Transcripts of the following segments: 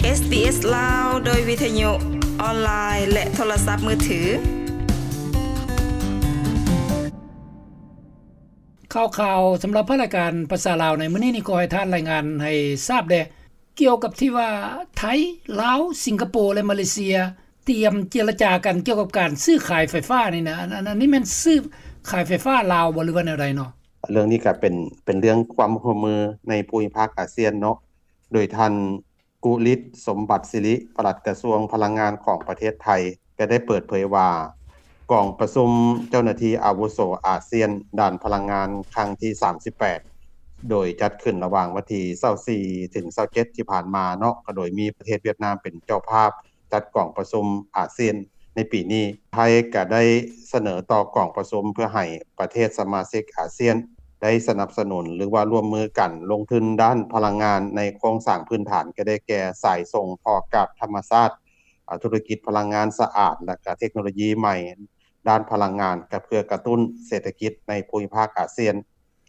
ເອສບີເອສ ລາວ ໂດຍວິທະຍຸອອນລາຍ ແລະ ໂທລະສັບມືຖື. ຂ່າວໆສຳລັບພາກລາຍການພາສາລາວໃນມື້ນີ້ນີ້ ຂໍໃຫ້ທ່ານລາຍງານໃຫ້ຊາບແດ່ ກ່ຽວກັບທີ່ວ່າໄທ, ລາວ, ສິງກະໂປ ແລະ ມາເລເຊຍ ຕຽມເຈລະຈາກັນກ່ຽວກັບການຊື້ຂາຍໄຟຟ້ານີ້ນະ. ອັນ ອັນ ອັນນີ້ແມ່ນຊື້ຂາຍໄຟຟ້າລາວບໍ່ ຫຼືວ່າແນວໃດເນາະ? ເລື່ອງນີ້ກໍເປັນ ເປັນເລື່ອງຄວາມຮ່ວມມືໃນພູມິພາກອາຊຽນເນາະ, ໂດຍທ່ານ ກຸລິດ ສົມບັດສິລິ ປະຫຼັດກະຊວງພະລັງງານຂອງປະເທດໄທ ກໍໄດ້ເປີດເຜີຍວ່າ ກອງປະຊຸມເຈົ້າໜ້າທີ່ອາວຸໂສອາຊຽນດ້ານພະລັງງານຄັ້ງທີສາມສິບແປດ ໂດຍຈັດຂຶ້ນລະຫວ່າງວັນທີຊາວສີ່ ເຖິງຊາວເຈັດ ທີ່ຜ່ານມາເນາະ, ກໍໂດຍມີປະເທດຫວຽດນາມເປັນເຈົ້າພາບ ຈັດກອງປະຊຸມອາຊຽນໃນປີນີ້. ໄທກໍໄດ້ສະເໜີຕໍ່ກອງປະຊຸມເພື່ອໃຫ້ປະເທດສະມາຊິກອາຊຽນໄດ້ສະໜັບສະໜູນ ຫຼືວ່າຮ່ວມມືກັນລົງທຶນດ້ານພະລັງງານໃນໂຄງສ້າງພື້ນຖານ ກໍໄດ້ແກ່ສາຍສົ່ງທໍ່ກາດທຳມະຊາດ, ອາ ທຸລະກິດພະລັງງານສະອາດ ແລະ ກະເທັກໂນໂລຢີໃໝ່ດ້ານພະລັງງານ ກໍເພື່ອກະຕຸ້ນເສດຖະກິດໃນພູມິພາກອາຊຽນ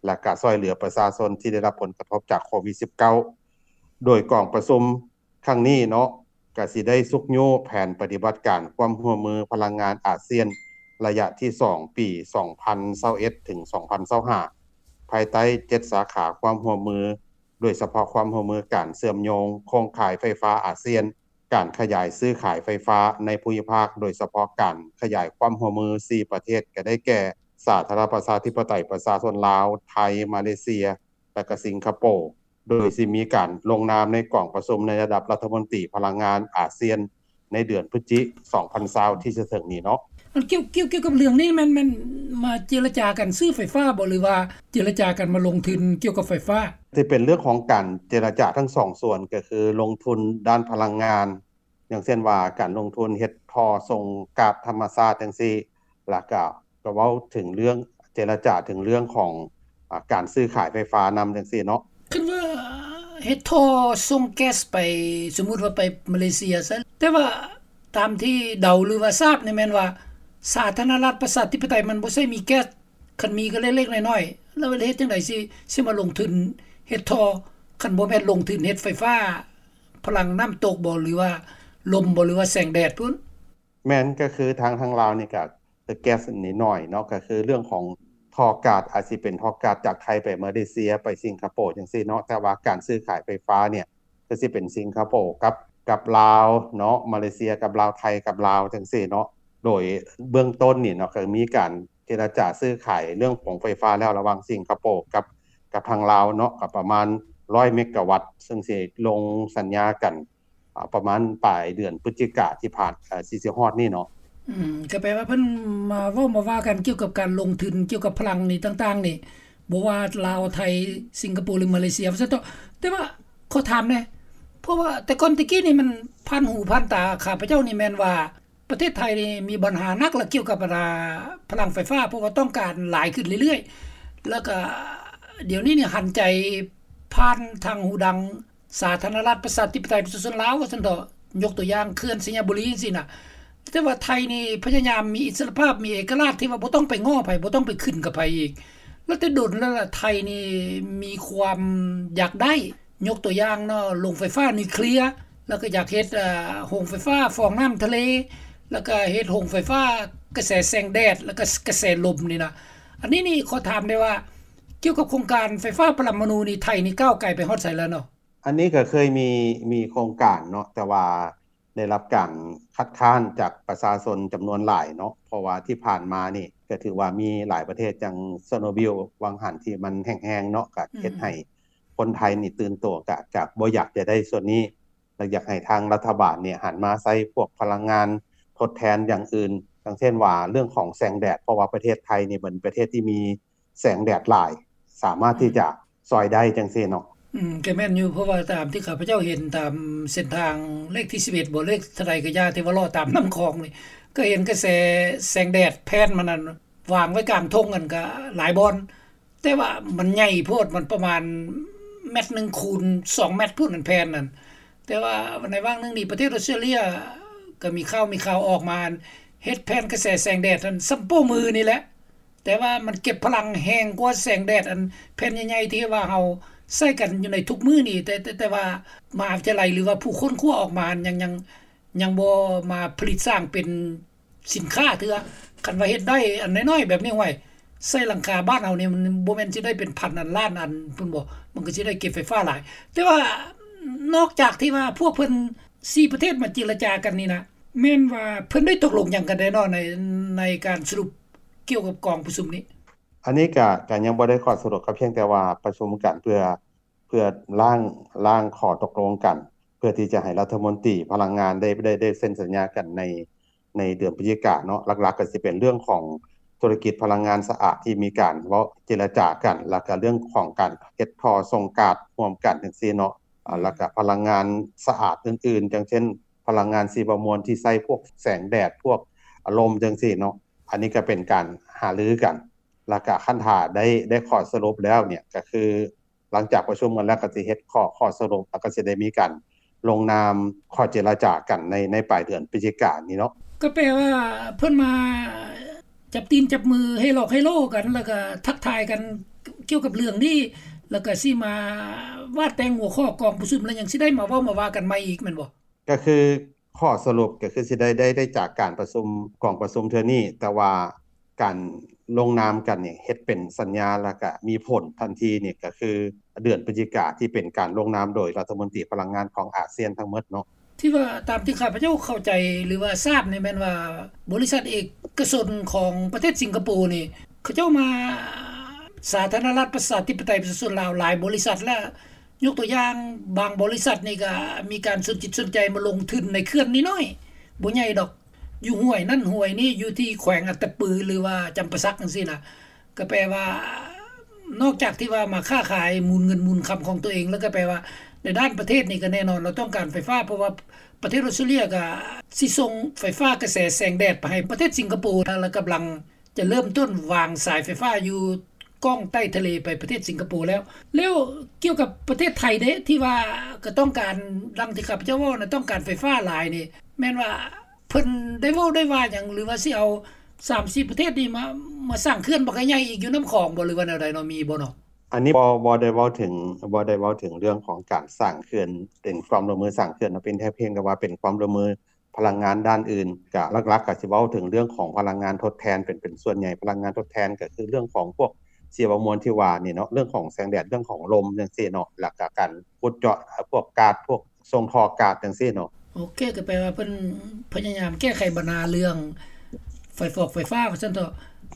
ແລະ ກະຊ່ວຍເຫຼືອປະຊາຊົນທີ່ໄດ້ຮັບຜົນກະທົບຈາກໂຄວິດສິບເກົ້າ. ໂດຍກອງປະຊຸມ ຄັ້ງນີ້ເນາະ ກະຊິໄດ້ຊຸກຍູ້ແຜນປະຕິບັດການຄວາມຮ່ວມມືພະລັງງານອາຊຽນ ໄລຍະທີສອງ ປີສອງພັນຊາວເອັດ ເຖິງ ສອງພັນຊາວຫ້າ ພາຍໃຕ້ເຈັດສາຂາຄວາມຮ່ວມມື, ໂດຍສະເພາະຄວາມຮ່ວມມືການເຊື່ອມໂຍງໂຄງຂ່າຍໄຟຟ້າອາຊຽນ, ການຂະຫຍາຍຊື້ຂາຍໄຟຟ້າໃນພູມິພາກ, ໂດຍສະເພາະການຂະຫຍາຍຄວາມຮ່ວມມືສີ່ປະເທດ ກໍໄດ້ແກ່ ສາທາລະນະລັດປະຊາທິປະໄຕປະຊາຊົນລາວ, ໄທ, ມາເລເຊຍ ແລະ ກະສິງກະໂປ, ໂດຍຊິມີການລົງນາມໃນກອງປະຊຸມໃນລະດັບລັດຖະມົນຕີພະລັງງານອາຊຽນ ໃນເດືອນພຶສຈິກາ ສອງພັນຊາວ ທີ່ຈະເຖິງນີ້ເນາະ. ອັນກ່ຽວ ກ່ຽວ ກ່ຽວກັບເລື່ອງນີ້ ແມ່ນ ແມ່ນມາເຈລະຈາກັນຊື້ໄຟຟ້າບໍ່ ຫຼືວ່າເຈລະຈາກັນມາລົງທຶນກ່ຽວກັບໄຟຟ້າ? ທີ່ເປັນເລື່ອງຂອງການເຈລະຈາທັງສອງສ່ວນ ກໍຄືລົງທຶນດ້ານພະລັງງານ ຢ່າງເຊັ່ນວ່າການລົງທຶນເຮັດທໍ່ສົ່ງກາດທຳມະຊາດຈັ່ງຊີ້ ແລ້ວກະ ກໍເວົ້າເຖິງເລື່ອງ ເຈລະຈາເຖິງເລື່ອງຂອງ ອາ ການຊື້ຂາຍໄຟຟ້ານຳຈັ່ງຊີ້ເນາະ. ຄັນວ່າເຮັດທໍ່ສົ່ງແກັສໄປ ສົມມຸດວ່າໄປມາເລເຊຍຊະ, ແຕ່ວ່າຕາມທີ່ເດົາ ຫຼືວ່າຊາບນີ້ແມ່ນວ່າ ສາທາລະນະລັດປະຊາທິປະໄຕມັນບໍ່ໃຊ້ມີແກັສ, ຄັນມີກໍເລັກໆນ້ອຍໆ, ແລ້ວເຮັດຈັ່ງໃດຊິ ຊິມາລົງທຶນເຮັດທໍ່ ຄັນບໍ່ແມ່ນລົງທຶນເຮັດໄຟຟ້າ ພະລັງນ້ຳຕົກບໍ່ ຫຼືວ່າລົມບໍ່ ຫຼືວ່າແສງແດດພຸ້ນ? ແມ່ນ, ກໍຄືທາງ ທາງລາວນີ້ກໍແກັສນີ້ໜ້ອຍເນາະ, ກໍຄືເລື່ອງຂອງທໍ່ກາດ ອາດຊິເປັນທໍ່ກາດຈາກໄທໄປມາເລເຊຍ ໄປສິງກະໂປຈັ່ງຊີ້ເນາະ, ແຕ່ວ່າການຊື້ຂາຍໄຟຟ້ານີ້ ກໍຊິເປັນສິງກະໂປກັບ ກັບລາວເນາະ, ມາເລເຊຍກັບລາວ, ໄທກັບລາວຈັ່ງຊີ້ເນາະ. ໂດຍເບື້ອງຕົ້ນນີ້ເນາະ ກໍມີການເຈລະຈາຊື້ຂາຍເລື່ອງຂອງໄຟຟ້າແລ້ວ ລະຫວ່າງສິງກະໂປກັບ ກັບທາງລາວເນາະ, ກໍປະມານຮ້ອຍເມກາວັດ ເຊິ່ງຊິລົງສັນຍາກັນ ອາ ປະມານປາຍເດືອນພຶສຈິກາທີ່ຜ່ານ ອາ ຊິ ຊິຮອດນີ້ເນາະ. ອືມ ກໍແປວ່າເພິ່ນມາເວົ້າມາວ່າກັນກ່ຽວກັບການລົງທຶນກ່ຽວກັບພະລັງນີ້ຕ່າງໆນີ້ ບໍ່ວ່າລາວ, ໄທ, ສິງກະໂປ ຫຼື ມາເລເຊຍ ວ່າຊັ້ນເຖາະ. ແຕ່ວ່າຂໍຖາມແດ່ ເພາະວ່າແຕ່ກ່ອນແຕ່ກີ້ນີ້ມັນຜ່ານຫູຜ່ານຕາຂ້າພະເຈົ້ານີ້ແມ່ນວ່າ ປະເທດໄທນີ້ມີບັນຫາໜັກລະກ່ຽວກັບ ອາ ພະລັງໄຟຟ້າ ເພາະວ່າຕ້ອງການຫຼາຍຂຶ້ນເລື້ອຍໆ ແລ້ວກະດຽວນີ້ນີ້ຫັນໃຈຜ່ານທາງຫູດັງ ສາທາລະນະລັດປະຊາທິປະໄຕປະຊາຊົນລາວ ວ່າຊັ້ນເຖາະ, ຍົກຕົວຢ່າງເຂື່ອນໄຊຍະບູລີຈັ່ງຊີ້ນະ. ແຕ່ວ່າໄທນີ້ພະຍາຍາມມີອິດສະຫຼະພາບ, ມີເອກະລາດທີ່ວ່າບໍ່ຕ້ອງໄປງໍ້ໃຜ, ບໍ່ຕ້ອງໄປຂຶ້ນກັບໃຜອີກ. ແລ້ວແຕ່ດົນແລ້ວລະ ໄທນີ້ມີຄວາມຢາກໄດ້ ຍົກຕົວຢ່າງເນາະ ໂຮງໄຟຟ້ານິວເຄລຍ, ແລ້ວກໍຢາກເຮັດ ເອີ ໂຮງໄຟຟ້າຟອງນ້ຳທະເລ, ແລ້ວກໍເຮັດໂຮງໄຟຟ້າກະແສແສງແດດ ແລ້ວກໍກະແສລົມນີ້ນະ. ອັນນີ້ນີ້ຂໍຖາມໄດ້ວ່າ ກ່ຽວກັບໂຄງການໄຟຟ້າປະລະມະນູນີ້ ໄທນີ້ກ້າວໄກໄປຮອດໃສແລ້ວເນາະ? ອັນນີ້ກໍເຄີຍມີ ມີໂຄງການເນາະ, ແຕ່ວ່າ ໄດ້ຮັບການຄັດຄ້ານຈາກປະຊາຊົນຈຳນວນຫຼາຍເນາະ, ເພາະວ່າທີ່ຜ່ານມານີ້ກໍຖືວ່າມີຫຼາຍປະເທດ ຈັ່ງເຊີໂນບິວຫວ່າງຫັນທີ່ມັນແຫ້ງໆເນາະ, ກໍເຮັດໃຫ້ ອືມ ຄົນໄທນີ້ຕື່ນຕົວ ກໍ ກໍບໍ່ຢາກຈະໄດ້ສ່ວນນີ້ ແລະ ຢາກໃຫ້ທາງລັດຖະບານນີ້ຫັນມາໃຊ້ພວກພະລັງງານທົດແທນຢ່າງອື່ນ, ຢ່າງເຊັ່ນວ່າເລື່ອງຂອງແສງແດດ, ເພາະວ່າປະເທດໄທນີ້ເປັນປະເທດທີ່ມີ ແສງແດດຫຼາຍ ສາມາດທີ່ຈະ ອືມ ຊ່ອຍໄດ້ຈັ່ງຊີ້ເນາະ. ອືມ ກໍແມ່ນຢູ່, ເພາະວ່າຕາມທີ່ຂ້າພະເຈົ້າເຫັນຕາມເສັ້ນທາງເລກທີສິບເອັດບໍ ເລກເທົ່າໃດກໍຢ່າ ທີ່ວ່າເລາະຕາມນ້ຳຂອງນີ້ ກໍເຫັນກະແສແສງແດດແຜ່ນມັນນັ້ນວາງໄວ້ກາງທົ່ງນັ້ນກໍຫຼາຍບ່ອນ, ແຕ່ວ່າມັນໃຫຍ່ໂພດ, ມັນປະມານແມັດໜຶ່ງຄູນສອງແມັດພຸ້ນ ອັນແຜ່ນນັ້ນ. ແຕ່ວ່າໃນຫວ່າງໜຶ່ງນີ້ ປະເທດອອສເຕຣເລຍກໍມີຂ່າວ ມີຂ່າວອອກມາ ເຮັດແຜ່ນກະແສແສງແດດຫັ້ນສ່ຳໂປ້ມືນີ້ແຫຼະ. ແຕ່ວ່າມັນເກັບພະລັງແຮງກວ່າແສງແດດ ອັນແຜ່ນໃຫຍ່ໆ ທີ່ວ່າເຮົາ ໃຊ້ກັນຢູ່ໃນທຸກມື້ນີ້ ແຕ່ ແຕ່ ແຕ່ວ່າມະຫາວິທະຍາໄລ ຫຼືວ່າຜູ້ຄົ້ນຄວ້າອອກມາຍັງ ຍັງ ຍັງບໍ່ມາຜະລິດສ້າງເປັນສິນຄ້າເທື່ອ. ຄັນວ່າເຮັດໄດ້ອັນນ້ອຍໆແບບນີ້ ຫ້ວຍ ໃສ່ຫຼັງຄາບ້ານເຮົານີ້ ມັນບໍ່ແມ່ນຊິໄດ້ເປັນພັນອັນລ້ານອັນພຸ້ນບໍ? ມັນກໍຊິໄດ້ເກັບໄຟຟ້າຫຼາຍ. ແຕ່ວ່ານອກຈາກທີ່ວ່າພວກເພິ່ນສີ່ປະເທດມາເຈລະຈາກັນນີ້ນະ ແມ່ນວ່າເພິ່ນໄດ້ຕົກລົງຫຍັງກັນແດ່ເນາະ ໃນ ໃນການສະຫຼຸບກ່ຽວກັບກອງປະຊຸມນີ້? ອັນນີ້ກະ ກະຍັງບໍ່ໄດ້ຂໍ້ສະຫຼຸບ ກໍພຽງແຕ່ວ່າປະຊຸມກັນເພື່ອ ເພື່ອລ້າງ ລ້າງຂໍ້ຕົກລົງກັນ ເພື່ອທີ່ຈະໃຫ້ລັດຖະມົນຕີພະລັງງານໄດ້ ໄດ້ ໄດ້ເຊັນສັນຍາກັນໃນ ໃນເດືອນພະຈິກາເນາະ. ຫຼັກໆກໍຊິເປັນເລື່ອງຂອງທຸລະກິດພະລັງງານສະອາດທີ່ມີການເວົ້າເຈລະຈາກັນ ແລ້ວກໍເລື່ອງຂອງການເຮັດທໍ່ສົ່ງກາດຮ່ວມກັນຈັ່ງຊີ້ເນາະ. ອາ ແລ້ວກໍພະລັງງານສະອາດອື່ນໆ ຢ່າງເຊັ່ນ ພະລັງງານຊີວະມວນທີ່ໃຊ້ພວກແສງແດດ ພວກລົມຈັ່ງຊີ້ເນາະ. ອັນນີ້ກໍເປັນການຫາລືກັນ ແລ້ວກໍຄັນຖ້າໄດ້ ໄດ້ຂໍ້ສະຫຼຸບແລ້ວເນຍ ກໍຄື ຫຼັງຈາກປະຊຸມກັນແລ້ວກໍຊິເຮັດຂໍ້ ຂໍ້ສະຫຼຸບ ແລ້ວກໍຊິໄດ້ມີການລົງນາມຂໍ້ເຈລະຈາກັນໃນ ໃນປາຍເດືອນພະຈິການີ້ເນາະ. ກໍແປວ່າເພິ່ນມາຈັບຕີນຈັບມື ເຮຫຼອກເຮໂລກັນ ແລ້ວກໍທັກທາຍກັນກ່ຽວກັບເລື່ອງນີ້ ແລ້ວກໍຊິມາວາດແຕ່ງຫົວຂໍ້ກອງປະຊຸມ ແລ້ວຍັງຊິໄດ້ມາເວົ້າມາວ່າກັນໃໝ່ອີກແມ່ນບໍ່? ກໍຄືຂໍ້ສະຫຼຸບກໍຄືຊິໄດ້ ໄດ້ ໄດ້ຈາກການປະຊຸມ ກອງປະຊຸມເທື່ອນີ້ ແຕ່ວ່າ ການລົງນາມກັນນີ້ເຮັດເປັນສັນຍາ ແລ້ວກະມີຜົນທັນທີນີ້ ກະຄືເດືອນພະຈິກາ ທີ່ເປັນການລົງນາມໂດຍລັດຖະມົນຕີພະລັງງານຂອງອາຊຽນທັງໝົດເນາະ. ທີ່ວ່າຕາມທີ່ຂ້າພະເຈົ້າເຂົ້າໃຈ ຫຼືວ່າຊາບນີ້ແມ່ນວ່າ ບໍລິສັດເອກະຊົນຂອງປະເທດສິງກະໂປນີ້ ເຂົາເຈົ້າມາ ສາທາລະນະລັດປະຊາທິປະໄຕປະຊາຊົນລາວຫຼາຍບໍລິສັດ ແລະ ຍົກຕົວຢ່າງບາງບໍລິສັດນີ້ກະມີການສົນຈິດສົນໃຈມາລົງທຶນໃນເຂື່ອນນ້ອຍໆ ບໍ່ໃຫຍ່ດອກ ຢູ່ຫ້ວຍນັ້ນຫ້ວຍນີ້ ຢູ່ທີ່ແຂວງອັດຕະປື ຫຼືວ່າຈຳປາສັກຈັ່ງຊີ້ນະ ກໍແປວ່າ ນອກຈາກທີ່ວ່າມາຄ້າຂາຍໝູນເງິນໝູນຄຳຂອງຕົວເອງ ແລ້ວກໍແປວ່າໃນດ້ານປະເທດນີ້ກໍແນ່ນອນລາວຕ້ອງການໄຟຟ້າ ເພາະວ່າປະເທດອອສເຕຣເລັຍກໍຊິສົ່ງໄຟຟ້າກະແສແສງແດດໄປໃຫ້ປະເທດສິງກະໂປ ແລ້ວກຳລັງຈະເລີ່ມຕົ້ນວາງສາຍໄຟຟ້າຢູ່ກ້ອງໃຕ້ທະເລໄປປະເທດສິງກະໂປແລ້ວ. ແລ້ວກ່ຽວກັບປະເທດໄທເດ ທີ່ວ່າກໍຕ້ອງການ ດັ່ງທີ່ຂ້າພະເຈົ້າເວົ້ານະ ຕ້ອງການໄຟຟ້າຫຼາຍນີ້ ແມ່ນວ່າ ເພິ່ນໄດ້ເວົ້າໄດ້ວ່າຫຍັງ ຫຼືວ່າຊິເອົາສາມສີ່ປະເທດນີ້ມາ ມາສ້າງເຂື່ອນບັກໃຫຍ່ໆອີກຢູ່ນ້ຳຂອງບໍ່ ຫຼືວ່າແນວໃດເນາະ ມີບໍ່ເນາະ? ອັນນີ້ບໍ່ ບໍ່ໄດ້ເວົ້າເຖິງ ບໍ່ໄດ້ເວົ້າເຖິງເລື່ອງຂອງການສ້າງເຂື່ອນ ເປັນຄວາມຮ່ວມມືສ້າງເຂື່ອນເນາະ ເປັນແຕ່ພຽງແຕ່ວ່າເປັນຄວາມຮ່ວມມືພະລັງງານດ້ານອື່ນ ກະຫຼັກໆກະຊິເວົ້າເຖິງເລື່ອງຂອງພະລັງງານທົດແທນ ເປັນ ເປັນສ່ວນໃຫຍ່ພະລັງງານທົດແທນ ກະຄືເລື່ອງຂອງພວກຊີວະມວນທີ່ວ່ານີ້ເນາະ ເລື່ອງຂອງແສງແດດ ເລື່ອງຂອງລົມຈັ່ງຊີ້ເນາະ ແລ້ວກະການຂຸດເຈາະພວກກາດ ພວກ ສົ່ງທໍ່ກາດຈັ່ງຊີ້ເນາະ. ໂອເຄ ກໍແປວ່າເພິ່ນພະຍາຍາມແກ້ໄຂບັນຫາເລື່ອງໄຟຟອກໄຟຟ້າວ່າຊັ້ນເຖາະ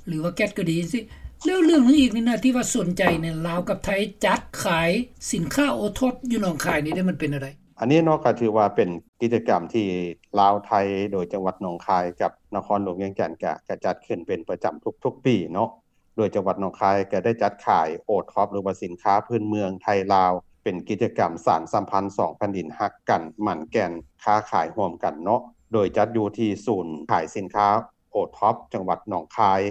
ຫຼືວ່າແກັດກໍດີຈັ່ງຊີ້. ແລ້ວເລື່ອງໜຶ່ງອີກນີ້ນະ ທີ່ວ່າສົນໃຈນີ້ ລາວກັບໄທຈັດຂາຍສິນຄ້າໂອທັອບຢູ່ໜອງຄາຍນີ້ເດ ມັນເປັນແນວໃດ? ອັນນີ້ເນາະ ກໍຖືວ່າເປັນກິດຈະກຳທີ່ລາວໄທ ໂດຍຈັງຫວັດໜອງຄາຍກັບນະຄອນຫຼວງວຽງຈັນ ກະ ກະຈັດຂຶ້ນເປັນປະຈຳທຸກໆປີເນາະ. ໂດຍຈັງຫວັດໜອງຄາຍກໍໄດ້ຈັດຂາຍໂອທັອບ ຫຼືວ່າສິນຄ້າພື້ນເມືອງໄທລາວ ເປັນກິດຈະກຳສານສຳພັນສອງແຜ່ນດິນຮັກກັນໝັ້ນແກ່ນຄ້າຂາຍຮ່ວມກັນເນາະ ໂດຍຈັດຢູ່ທີ່ສູນຂາຍສິນຄ້າໂອທັອບ ຈັງຫວັດໜອງຄາຍ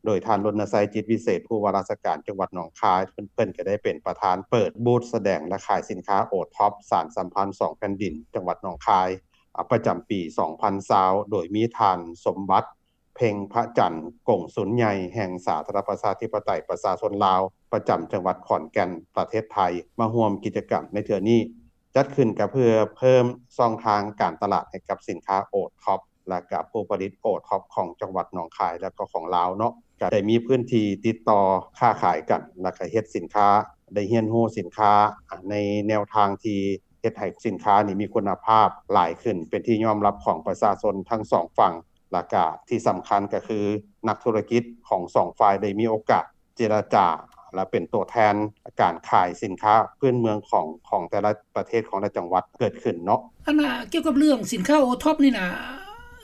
ໂດຍທ່ານ ລົນນະໄຊ ຈິດວິເສດ ຜູ້ວ່າລາຊະການຈັງຫວັດໜອງຄາຍ ເພິ່ນ ເພິ່ນກໍໄດ້ເປັນປະທານເປີດບູດສະແດງ ແລະ ຂາຍສິນຄ້າໂອທັອບ ສານສຳພັນສອງແຜ່ນດິນ ຈັງຫວັດໜອງຄາຍ ອາ ປະຈຳປີສອງພັນຊາວ ໂດຍມີທ່ານ ສົມບັດ ເພັງພະຈັນ ກົງສຸນໃຫຍ່ແຫ່ງສາທາລະນະລັດປະຊາທິປະໄຕປະຊາຊົນລາວ ປະຈຳຈັງຫວັດຂອນແກ່ນ ປະເທດໄທ ມາຮ່ວມກິດຈະກຳໃນເທື່ອນີ້. ຈັດຂຶ້ນກໍເພື່ອເພີ່ມຊ່ອງທາງການຕະຫຼາດໃຫ້ກັບສິນຄ້າໂອທັອບ ແລະ ກະຜູ້ຜະລິດໂອທັອບຂອງຈັງຫວັດໜອງຄາຍ ແລະ ກໍຂອງລາວເນາະ ກະໄດ້ມີພື້ນທີ່ຕິດຕໍ່ຄ້າຂາຍກັນ ແລະ ກະເຮັດສິນຄ້າ ໄດ້ຮຽນຮູ້ສິນຄ້າໃນແນວທາງທີ່ເຮັດໃຫ້ສິນຄ້ານີ້ມີຄຸນນະພາບຫຼາຍຂຶ້ນ ເປັນທີ່ຍອມຮັບຂອງປະຊາຊົນທັງສອງຝັ່ງ. ແລ້ວກະທີ່ສຳຄັນກໍຄືນັກທຸລະກິດຂອງສອງຝ່າຍໄດ້ມີໂອກາດເຈລະຈາ ແລະ ເປັນຕົວແທນການຂາຍສິນຄ້າພື້ນເມືອງຂອງ ຂອງແຕ່ລະປະເທດ ຂອງແຕ່ລະຈັງຫວັດເກີດຂຶ້ນເນາະ. ອັນນ່າ ກ່ຽວກັບເລື່ອງສິນຄ້າໂອທັອບນີ້ນະ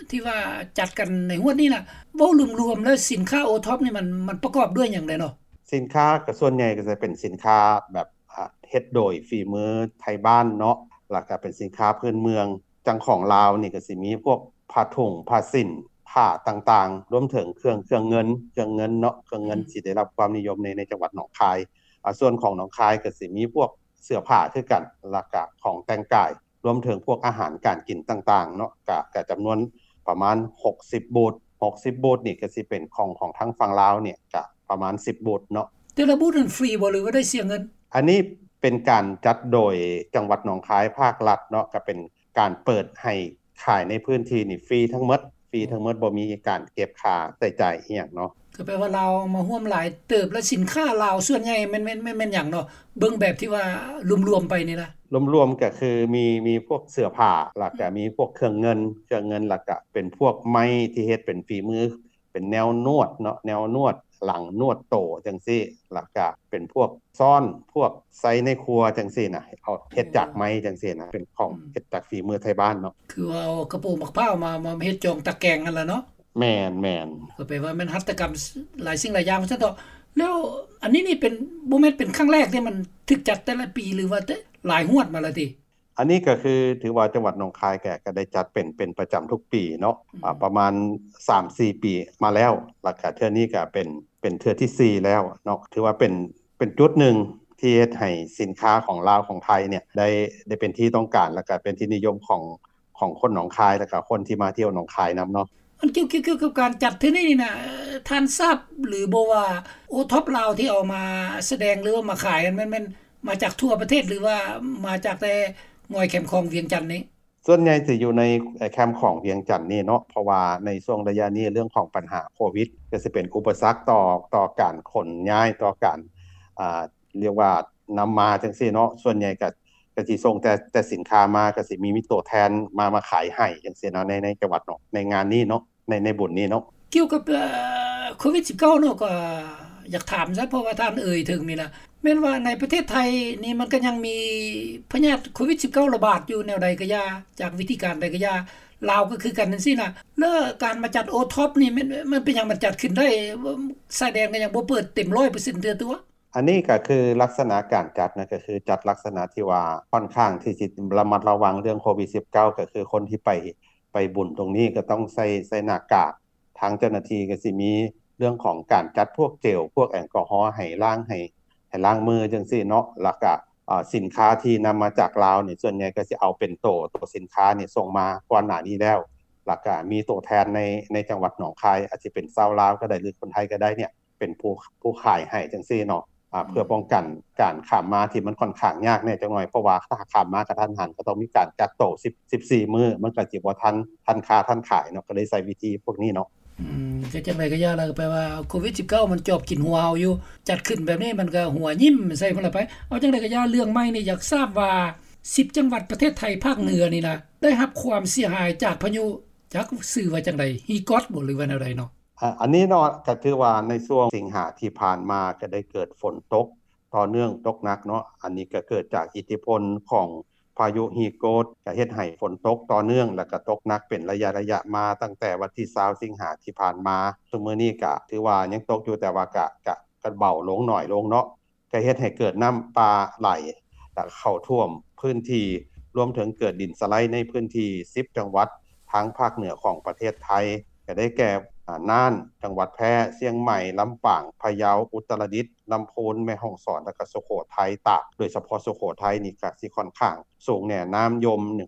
ທີ່ວ່າຈັດກັນໃນງວດນີ້ນະ ເວົ້າລວມໆແລ້ວສິນຄ້າໂອທັອບນີ້ມັນ ມັນປະກອບດ້ວຍຫຍັງແດ່ເນາະ? ສິນຄ້າກໍສ່ວນໃຫຍ່ກໍຈະເປັນສິນຄ້າແບບ ອາ ເຮັດໂດຍຝີມືໄທບ້ານເນາະ ແລ້ວກະເປັນສິນຄ້າພື້ນເມືອງ ຈັ່ງຂອງລາວນີ້ກໍຊິມີພວກຜ້າຖົງ ຜ້າສິ້ນ ຜ້າຕ່າງໆ ລວມເຖິງເຄື່ອງ ເຄື່ອງເງິນ ເຄື່ອງເງິນເນາະ ເຄື່ອງເງິນ ອືມ ຊິໄດ້ຮັບຄວາມນິຍົມໃນ ໃນຈັງຫວັດໜອງຄາຍ. ອາ ສ່ວນຂອງໜອງຄາຍກໍຊິມີພວກເສື້ອຜ້າຄືກັນ ແລ້ວກະຂອງແຕ່ງກາຍ ລວມເຖິງພວກອາຫານການກິນຕ່າງໆເນາະ ກະ ກະຈຳນວນປະມານຫົກສິບບູດ ຫົກສິບບູດນີ້ກໍຊິເປັນຂອງ ຂອງທາງຝັ່ງລາວນີ້ກະປະມານສິບບູດເນາະ. ແຕ່ລະບູດນັ້ນຟຣີບໍ່ ຫຼືວ່າໄດ້ເສຍເງິນ? ອັນນີ້ ເປັນການຈັດໂດຍຈັງຫວັດໜອງຄາຍ ພາກລັດເນາະ ກໍເປັນການເປີດໃຫ້ຂາຍໃນພື້ນທີ່ນີ້ຟຣີທັງໝົດ ຟຣີທັງໝົດ ບໍ່ມີການເກັບຄ່າໃຊ້ຈ່າຍອີ່ຫຍັງເນາະ. ກໍແປວ່າລາວມາຮ່ວມຫຼາຍເຕີບ ແລະ ສິນຄ້າລາວສ່ວນໃຫຍ່ແມ່ນ ແມ່ນ ແມ່ນ ແມ່ນຫຍັງເນາະ? ເບິ່ງແບບທີ່ວ່າລວມໆໄປນີ້ນະ. ລວມໆກໍຄືມີ ມີພວກເສື້ອຜ້າ ແລ້ວກໍ ອືມ ມີພວກເຄື່ອງເງິນ ເຄື່ອງເງິນ ແລ້ວກໍເປັນພວກໄມ້ທີ່ເຮັດເປັນຝີມື ເປັນແນວນວດເນາະ ແນວນວດຫຼັງ ນວດໂຕຈັ່ງຊີ້ ແລ້ວກະເປັນພວກຊ້ອນ ພວກໃຊ້ໃນຄົວຈັ່ງຊີ້ນະ ເອົາເຮັດຈາກໄມ້ຈັ່ງຊີ້ນະ ເປັນຂອງ ອືມ ເຮັດຈາກຝີມືໄທບ້ານເນາະ. ຄືວ່າເອົາກະໂປງໝາກພ້າວມາ ມາເຮັດຈອງຕາແກງຫັ້ນລະເນາະ. ແມ່ນໆ ກໍແປວ່າແມ່ນຫັດຖະກຳຫຼາຍສິ່ງຫຼາຍຢ່າງວ່າຊັ້ນເຖາະ. ແລ້ວອັນນີ້ນີ້ເປັນ ບໍ່ແມ່ນເປັນຄັ້ງແລກເດ້ ມັນຖືກຈັດແຕ່ລະປີ ຫຼືວ່າແຕ່ຫຼາຍຮວດມາແລ້ວຕິ? ອັນນີ້ກໍຄືຖືວ່າຈັງຫວັດໜອງຄາຍກໍ ກໍໄດ້ຈັດເປັນ ເປັນປະຈຳທຸກປີເນາະ ອືມ ອາ ປະມານສາມສີ່ປີມາແລ້ວ ແລ້ວກໍເທື່ອນີ້ກໍເປັນ ເປັນເທື່ອທີສີ່ແລ້ວເນາະ. ຖືວ່າເປັນ ເປັນຈຸດໜຶ່ງທີ່ເຮັດໃຫ້ສິນຄ້າຂອງລາວຂອງໄທນີ້ໄດ້ ໄດ້ເປັນທີ່ຕ້ອງການ ແລ້ວກໍເປັນທີ່ນິຍົມຂອງ ຂອງຄົນໜອງຄາຍ ແລ້ວກໍຄົນທີ່ມາທ່ຽວໜອງຄາຍນຳເນາະ. ອັນກ່ຽວ ກ່ຽວ ກ່ຽວກັບການຈັດເທື່ອນີ້ນີ້ນະ ທ່ານຊາບຫຼືບໍ່ວ່າໂອທັອບລາວທີ່ເອົາມາສະແດງ ຫຼືວ່າມາຂາຍຫັ້ນ ແມ່ນ ແມ່ນມາຈາກທົ່ວປະເທດ ຫຼືວ່າມາຈາກແຕ່ງອຍແຄມຂອງວຽງຈັນນີ້? ສ່ວນໃຫຍ່ຈະຢູ່ໃນແຄມຂອງວຽງຈັນນີ້ເນາະ ເພາະວ່າໃນຊ່ວງໄລຍະນີ້ເລື່ອງຂອງບັນຫາໂຄວິດ ກໍຊິເປັນອຸປະສັກຕໍ່ ຕໍ່ການຂົນຍ້າຍ ຕໍ່ການ ອ່າ ລຽກວ່ານຳມາຈັ່ງຊີ້ເນາະ. ສ່ວນໃຫຍ່ກໍ ກໍຊິສົ່ງແຕ່ ແຕ່ສິນຄ້າມາ ກໍຊິມີ ມີຕົວແທນມາ ມາຂາຍໃຫ້ຈັ່ງຊີ້ເນາະ ໃນ ໃນຈັງຫວັດເນາະ ໃນງານນີ້ເນາະ ໃນ ໃນບຸນນີ້ເນາະ. ກ່ຽວກັບ ເອີ ໂຄວິດສິບເກົ້າເນາະ ກໍຢາກຖາມຊະ ເພາະວ່າທ່ານເອີ່ຍເຖິງນີ້ລະ ແມ່ນວ່າໃນປະເທດໄທນີ້ມັນກໍຍັງມີພະຍາດໂຄວິດສິບເກົ້າລະບາດຢູ່ແນວໃດກໍຢ່າ ຈາກວິທີການໃດກໍຢ່າ ລາວກໍຄືກັນຈັ່ງຊີ້ນະ ແລ້ວການມາຈັດໂອທັອບນີ້ ມັນ ມັນເປັນຫຍັງມັນຈັດຂຶ້ນໄດ້ ຊາຍແດນກໍຍັງບໍ່ເປີດເຕັມຮ້ອຍເປີເຊັນເທື່ອຕົວະ? ອັນນີ້ກໍຄືລັກສະນະການຈັດນະ ກໍຄືຈັດລັກສະນະທີ່ວ່າຂ້ອນຂ້າງທີ່ຊິລະມັດລະວັງເລື່ອງໂຄວິດສິບເກົ້າ ກໍຄືຄົນທີ່ໄປ ໄປບຸນຕົງນີ້ກໍຕ້ອງໃສ່ ໃສ່ໜ້າກາກ ທາງເຈົ້າໜ້າທີ່ກໍຊິມີເລື່ອງຂອງການຈັດພວກເຈວ ພວກແອລກໍຮໍໃຫ້ລ້າງ ໃຫ້ ໃຫ້ລ້າງມືຈັ່ງຊີ້ເນາະ. ແລ້ວກະ ອາ ສິນຄ້າທີ່ນຳມາຈາກລາວນີ້ ສ່ວນໃຫຍ່ກໍຊິເອົາເປັນໂຕ ໂຕສິນຄ້ານີ້ສົ່ງມາ ກ່ອນໜ້ານີ້ແລ້ວ ແລ້ວກະມີໂຕແທນໃນ ໃນຈັງຫວັດໜອງຄາຍ ອາດຊິເປັນຊາວລາວກໍໄດ້ ຫຼືຄົນໄທກໍໄດ້ນີ້ ເປັນຜູ້ ຜູ້ຂາຍໃຫ້ຈັ່ງຊີ້ເນາະ ອາ ອືມ ເພື່ອປ້ອງກັນການຂ້າມມາທີ່ມັນຂ້ອນຂ້າງຍາກແດ່ຈັກໜ້ອຍ ເພາະວ່າຖ້າຂ້າມມາກະທັນຫັນ ກໍຕ້ອງມີການກັກໂຕສິບ ສິບສີ່ມື້ ມັນກໍຊິບໍ່ທັນ ທັນຄ້າທັນຂາຍເນາະ ກໍເລີຍໃຊ້ວິທີພວກນີ້ເນາະ. ອືມ ກໍຈັ່ງໃດກໍຢ່າລະ ແປວ່າໂຄວິດສິບເກົ້າມັນຈອບກິນຫົວເຮົາຢູ່ ຈັດຂຶ້ນແບບນີ້ມັນກໍຫົວຍິ້ມໃສ່ພຸ້ນລະໄປ. ເອົາຈັ່ງໃດກໍຢ່າ ເລື່ອງໃໝ່ນີ້ ຢາກຊາບວ່າສິບຈັງຫວັດປະເທດໄທພາກເໜືອນີ້ນະ ໄດ້ຮັບຄວາມເສຍຫາຍຈາກພາຍຸ ຈັກຊື່ວ່າຈັ່ງໃດ ຮີກອດບໍ ຫຼືວ່າແນວໃດເນາະ? ອາ ອັນນີ້ເນາະ ກໍຖືວ່າໃນຊ່ວງສິງຫາທີ່ຜ່ານມາ ກໍໄດ້ເກີດຝົນຕົກຕໍ່ເນື່ອງ ຕົກໜັກເນາະ. ອັນນີ້ກໍເກີດຈາກອິດທິພົນຂອງພາຍຸຮີໂກດ ກໍເຮັດໃຫ້ຝົນຕົກຕໍ່ເນື່ອງ ແລ້ວກໍຕົກໜັກເປັນໄລຍະໆມາ ຕັ້ງແຕ່ວັນທີຊາວສິງຫາທີ່ຜ່ານມາ. ຊຸມມື້ນີ້ກໍຖືວ່າຍັງຕົກຢູ່ ແຕ່ວ່າກໍ ກໍ ກໍເບົາລົງ ໜ້ອຍລົງເນາະ. ກໍເຮັດໃຫ້ເກີດນ້ຳປ່າໄຫຼ ແລະ ເຂົ້າຖ້ວມພື້ນທີ່ ລວມເຖິງເກີດດິນສະໄລໃນພື້ນທີ່ສິບຈັງຫວັດທາງພາກເໜືອຂອງປະເທດໄທ ກໍໄດ້ແກ່ ອາ ນ່ານ, ຈັງຫວັດແພ, ຊຽງໃໝ່, ລຳປາງ, ພະເຍົາ, ອຸດຕະລະດິດ, ລຳພູນ, ແມ່ຮ່ອງສອນ ແລະ ກໍສຸໂຂໄທ, ຕາກ, ໂດຍສະເພາະສຸໂຂໄທນີ້ກໍຊິຂ້ອນຂ້າງສູງແດ່, ນ້ຳຍົມ,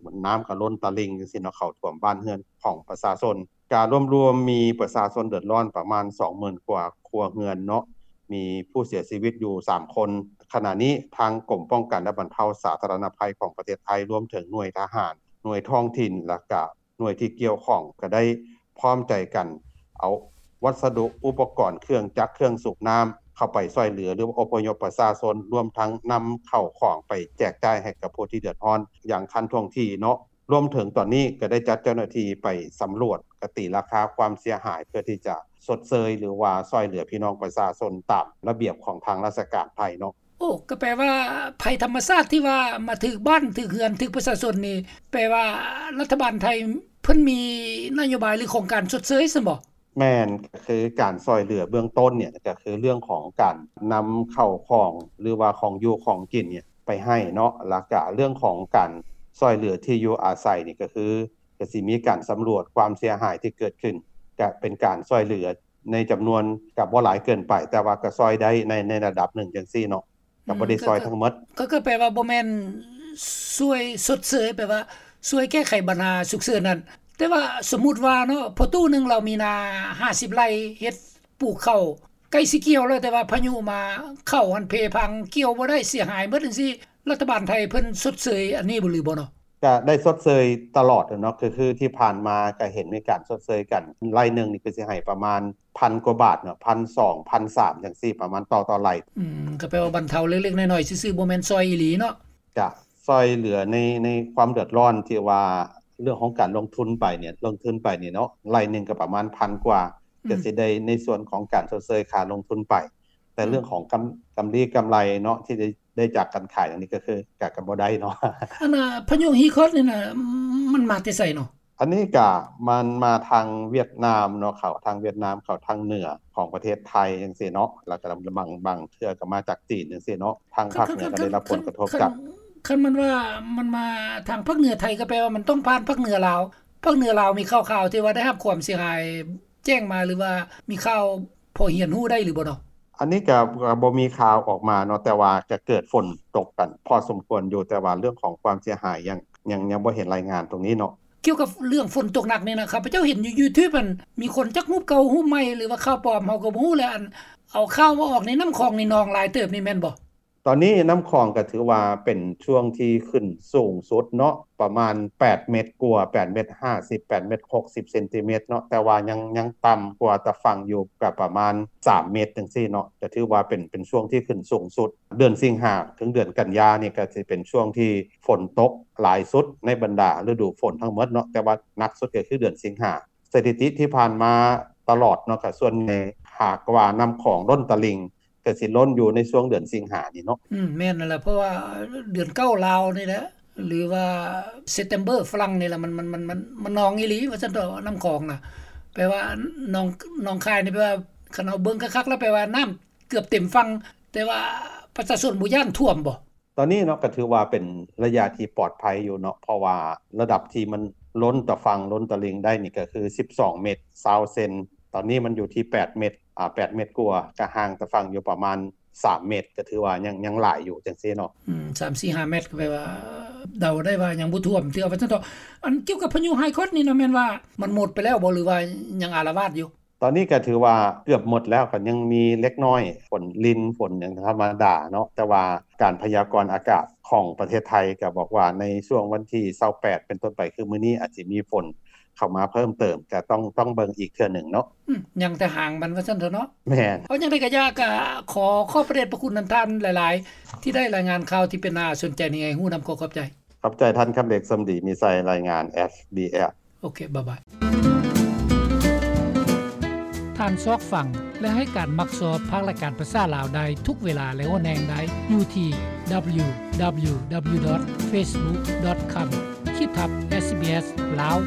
ນ້ຳກໍລົ້ນຕະລິ່ງຈັ່ງຊີ້ເນາະ ເຂົ້າຖ້ວມບ້ານເຮືອນຂອງປະຊາຊົນ. ກະລວມໆມີປະຊາຊົນເດືອດຮ້ອນປະມານສອງໝື່ນກວ່າຄົວເຮືອນເນາະ, ມີຜູ້ເສຍຊີວິດຢູ່ສາມຄົນ. ຂະນະນີ້ທາງກົມປ້ອງກັນ ແລະ ບັນເທົາສາທາລະນະໄພຂອງປະເທດໄທ ລວມເຖິງໜ່ວຍທະຫານ, ໜ່ວຍທ້ອງຖິ່ນ ແລ້ວກະໜ່ວຍທີ່ກ່ຽວຂ້ອງ ກະໄດ້ພ້ອມໃຈກັນເອົາວັດສະດຸ ອຸປະກອນ ເຄື່ອງຈັກ ເຄື່ອງສູບນ້ຳ ເຂົ້າໄປຊ່ວຍເຫຼືອ ຫຼື ອົບພະຍົບປະຊາຊົນ, ລວມທັງນຳເຂົ້າຂອງໄປແຈກຈ່າຍໃຫ້ກັບຜູ້ທີ່ເດືອດຮ້ອນຢ່າງທັນທ່ວງທີເນາະ. ລວມເຖິງຕອນນີ້ກໍໄດ້ຈັດເຈົ້າໜ້າທີ່ໄປສຳຫຼວດ ກະຕີລາຄາຄວາມເສຍຫາຍ ເພື່ອທີ່ຈະຊົດເຊີຍ ຫຼືວ່າຊ່ອຍເຫຼືອພີ່ນ້ອງປະຊາຊົນຕາມລະບຽບຂອງທາງລາຊະການໄທເນາະ. ໂອ້ ກໍແປວ່າໄພທຳມະຊາດທີ່ວ່າມາຖືກບ້ານ ຖືກເຮືອນ ຖືກປະຊາຊົນນີ້ ແປວ່າລັດຖະບານໄທເພິ່ນມີນະໂຍບາຍ ຫຼື ໂຄງການຊົດເຊີຍຊັ້ນບໍ? ແມ່ນ, ກໍຄືການຊ່ອຍເຫຼືອເບື້ອງຕົ້ນນີ້ ກໍຄືເລື່ອງຂອງການນຳເຂົ້າຂອງ ຫຼືວ່າຂອງຢູ່ຂອງກິນນີ້ໄປໃຫ້ເນາະ, ແລ້ວກະເລື່ອງຂອງການຊ່ອຍເຫຼືອທີ່ຢູ່ອາໄສນີ້ ກໍຄື ກໍຊິມີການສຳຫຼວດຄວາມເສຍຫາຍທີ່ເກີດຂຶ້ນ, ກະເປັນການຊ່ອຍເຫຼືອໃນຈຳນວນ ກະບໍ່ຫຼາຍເກີນໄປ, ແຕ່ວ່າກະຊ່ອຍໄດ້ໃນ ໃນລະດັບໜຶ່ງຈັ່ງຊີ້ເນາະ. ກໍບໍ່ໄດ້ຊ່ອຍທັງໝົດ. ກໍ ກໍແປວ່າບໍ່ແມ່ນຊ່ວຍຊົດເຊີຍ, ແປວ່າຊ່ວຍແກ້ໄຂບັນຫາສຸກເສີນນັ້ນ. ແຕ່ວ່າສົມມຸດວ່າເນາະ, ພໍ່ຕູ້ໜຶ່ງລາວມີນາຫ້າສິບໄຮ່, ເຮັດປູກເຂົ້າ ໃກ້ຊິກ່ຽວແລ້ວ ແຕ່ວ່າພາຍຸມາ ເຂົ້າຫັ້ນເພພັງ ກ່ຽວບໍ່ໄດ້ ເສຍຫາຍໝົດຈັ່ງຊີ້ ລັດຖະບານໄທເພິ່ນຊົດເຊີຍອັນນີ້ບໍ່ ຫຼືບໍ່ເນາະ? ກະໄດ້ຊົດເຊີຍຕະຫຼອດເນາະ ຄື ຄືທີ່ຜ່ານມາກະເຫັນມີການຊົດເຊີຍກັນ ໄລ່ໜຶ່ງນີ້ຄືຊິໃຫ້ປະມານພັນກວ່າບາດເນາະ ພັນສອງ ພັນສາມຈັ່ງຊີ້ ປະມານຕໍ່ ຕໍ່ໄລ່. ອືມ ກະແປວ່າບັນເທົາເລັກໆນ້ອຍໆຊື່ໆ ບໍ່ແມ່ນຊ່ອຍອີ່ຫຼີເນາະ? ກະຊ່ອຍເຫຼືອໃນ ໃນຄວາມເດືອດຮ້ອນທີ່ວ່າເລື່ອງຂອງການລົງທຶນໄປນີ້ ລົງທຶນໄປນີ້ເນາະ ໄລ່ໜຶ່ງກະປະມານພັນກວ່າ ອືມ ກະຊິໄດ້ໃນສ່ວນຂອງການຊົດເຊີຍຄ່າລົງທຶນໄປ ແຕ່ ອືມ ເລື່ອງຂອງກຳ ກຳລີກຳໄລເນາະ ທີ່ໄດ້ ໄດ້ຈາກການຂາຍອັນນີ້ກະຄື ກະ ກະບໍ່ໄດ້ເນາະ. ອັນນ່າ ພາຍຸຮີຄອດນີ້ນະ ມັນມາແຕ່ໃສເນາະ? ອັນນີ້ກະມັນມາທາງຫວຽດນາມເນາະ ເຂົ້າທາງຫວຽດນາມ ເຂົ້າທາງເໜືອຂອງປະເທດໄທຈັ່ງຊີ້ເນາະ ແລ້ວກະບາງ ບາງເທື່ອກະມາຈາກຈີນຈັ່ງຊີ້ເນາະ ທາງພາກເໜືອກະໄດ້ຮັບຜົນກະທົບຈາກ ຄັນ ຄັນ ຄັນມັນວ່າມັນມາທາງພາກເໜືອໄທ ກະແປວ່າມັນຕ້ອງຜ່ານພາກເໜືອລາວ ພາກເໜືອລາວມີຂ່າວໆທີ່ວ່າໄດ້ຮັບຄວາມເສຍຫາຍແຈ້ງມາ ຫຼືວ່າມີຂ່າວພໍຮຽນຮູ້ໄດ້ຫຼືບໍ່ເນາະ? ອັນນີ້ກະ ກະບໍ່ມີຂ່າວອອກມາເນາະ ແຕ່ວ່າກະເກີດຝົນຕົກກັນພໍສົມຄວນຢູ່ ແຕ່ວ່າເລື່ອງຂອງຄວາມເສຍຫາຍຍັງ ຍັງ ຍັງບໍ່ເຫັນລາຍງານຕົງນີ້ເນາະ. ກ່ຽວກັບເລື່ອງຝົນຕົກໜັກນີ້ນະ ຂ້າພະເຈົ້າເຫັນຢູ່ຢູທູບ ອັນ ມີຄົນຈັກຮູບເກົ່າຮູບໃໝ່ ຫຼືວ່າຂ່າວປອມ ເຮົາກະບໍ່ຮູ້ແຫຼະ ອັນ ເອົາຂ່າວມາອອກໃນນ້ຳຂອງນີ້ ໜອງຫຼາຍເຕີບນີ້ແມ່ນບໍ່? ຕອນນີ້ນ້ຳຂອງກະຖືວ່າເປັນຊ່ວງທີ່ຂຶ້ນສູງສຸດເນາະ ປະມານແປດເມັດກວ່າ ແປດເມັດຫ້າສິບ ແປດເມັດຫົກສິບເຊັນຕີເມັດເນາະ ແຕ່ວ່າຍັງ ຍັງຕ່ຳກວ່າຕາຝັ່ງຢູ່ກະປະມານສາມເມັດຈັ່ງຊີ້ເນາະ ກະຖືວ່າເປັນ ເປັນຊ່ວງທີ່ຂຶ້ນສູງສຸດ. ເດືອນສິງຫາເຖິງເດືອນກັນຍານີ້ກະຊິເປັນຊ່ວງທີ່ຝົນຕົກຫຼາຍສຸດໃນບັນດາລະດູຝົນທັງໝົດເນາະ ແຕ່ວ່າໜັກສຸດກະຄືເດືອນສິງຫາ. ສະຖິຕິທີ່ຜ່ານມາຕະຫຼອດເນາະ ກະສ່ວນໃຫຍ່ຫາກວ່ານ້ຳຂອງລົ້ນຕະລິ່ງ ກະຊິລົ້ນຢູ່ໃນຊ່ວງເດືອນສິງຫານີ້ເນາະ. ອືມ ແມ່ນນັ້ນແຫຼະ ເພາະວ່າເດືອນເກົ້າລາວນີ້ແຫຼະ ຫຼືວ່າເຊັບເຕັມເບີຝຣັ່ງນີ້ແຫຼະ ມັນ ມັນ ມັນ ມັນ ມັນນອງອີ່ຫຼີວ່າຊັ້ນເຖາະ ນ້ຳຂອງນະ ແປວ່າໜອງ ໜອງຄາຍນີ້ ແປວ່າຄັນເຮົາເບິ່ງຄັກໆແລ້ວ ແປວ່ານ້ຳເກືອບເຕັມຝັ່ງ ແຕ່ວ່າປະຊາຊົນບໍ່ຢ້ານຖ້ວມບໍ່? ຕອນນີ້ເນາະ ກະຖືວ່າເປັນໄລຍະທີ່ປອດໄພຢູ່ເນາະ ເພາະວ່າລະດັບທີ່ມັນລົ້ນຕາຝັ່ງລົ້ນຕະລິ່ງໄດ້ນີ້ກະຄືສິບສອງເມັດຊາວເຊັນ ຕອນນີ້ມັນຢູ່ທີ່ແປດເມັດ ອາ ແປດເມັດກວ່າ ກະຫ່າງຕາຝັ່ງຢູ່ປະມານສາມເມັດ ກະຖືວ່າຍັງ ຍັງຫຼາຍຢູ່ຈັ່ງຊີ້ເນາະ. ອືມ ສາມສີ່ຫ້າເມັດ ກະແປວ່າເດົາໄດ້ວ່າຍັງບໍ່ຖ້ວມເທື່ອວ່າຊັ້ນເຖາະ. ອັນກ່ຽວກັບພາຍຸຮີຄອດນີ້ນະ ແມ່ນວ່າມັນໝົດໄປແລ້ວບໍ່ ຫຼືວ່າຍັງອາລະວາດຢູ່? ຕອນນີ້ກະຖືວ່າເກືອບໝົດແລ້ວ ກະຍັງມີເລັກນ້ອຍ ຝົນລິນ ຝົນຫຍັງທຳມະດາເນາະ ແຕ່ວ່າການພະຍາກອນອາກາດຂອງປະເທດໄທກະບອກວ່າໃນຊ່ວງວັນທີຊາວແປດເປັນຕົ້ນໄປ ຄືມື້ນີ້ອາດຊິມີຝົນເຂົ້າມາເພີ່ມເຕີມ ກະຕ້ອງ ຕ້ອງເບິ່ງອີກເທື່ອໜຶ່ງເນາະ. ອືມ ຍັງແຕ່ຫາງມັນວ່າຊັ້ນເຖາະເນາະ. ແມ່ນ. ເອົາ ຈັ່ງໃດກະຢ່າ ກະຂໍຂອບພະເດດພະຄຸນນຳທ່ານຫຼາຍໆ ທີ່ໄດ້ລາຍງານຂ່າວທີ່ເປັນໜ້າສົນໃຈນີ້ໃຫ້ຮູ້ນຳ. ຂໍຂອບໃຈ. ຂອບໃຈທ່ານ ຄຳເລັກ ສົມດີມີໄຊ ລາຍງານ ເອັສບີເອັສ. ໂອເຄ ບາຍບາຍ. ທ່ານຊອກຟັງ ແລະ ໃຫ້ການມັກຊອບພາກລາຍການພາສາລາວໄດ້ທຸກເວລາ ແລະ ຫົວແຮງໄດ້ຢູ່ທີ່ ດັບເບິນຢູດັບເບິນຢູດັບເບິນຢູ ດອດ ເຟສບຸກ ດອດ ຄອມ ຂີດທັບ ເອສບີເອສ ລາວ.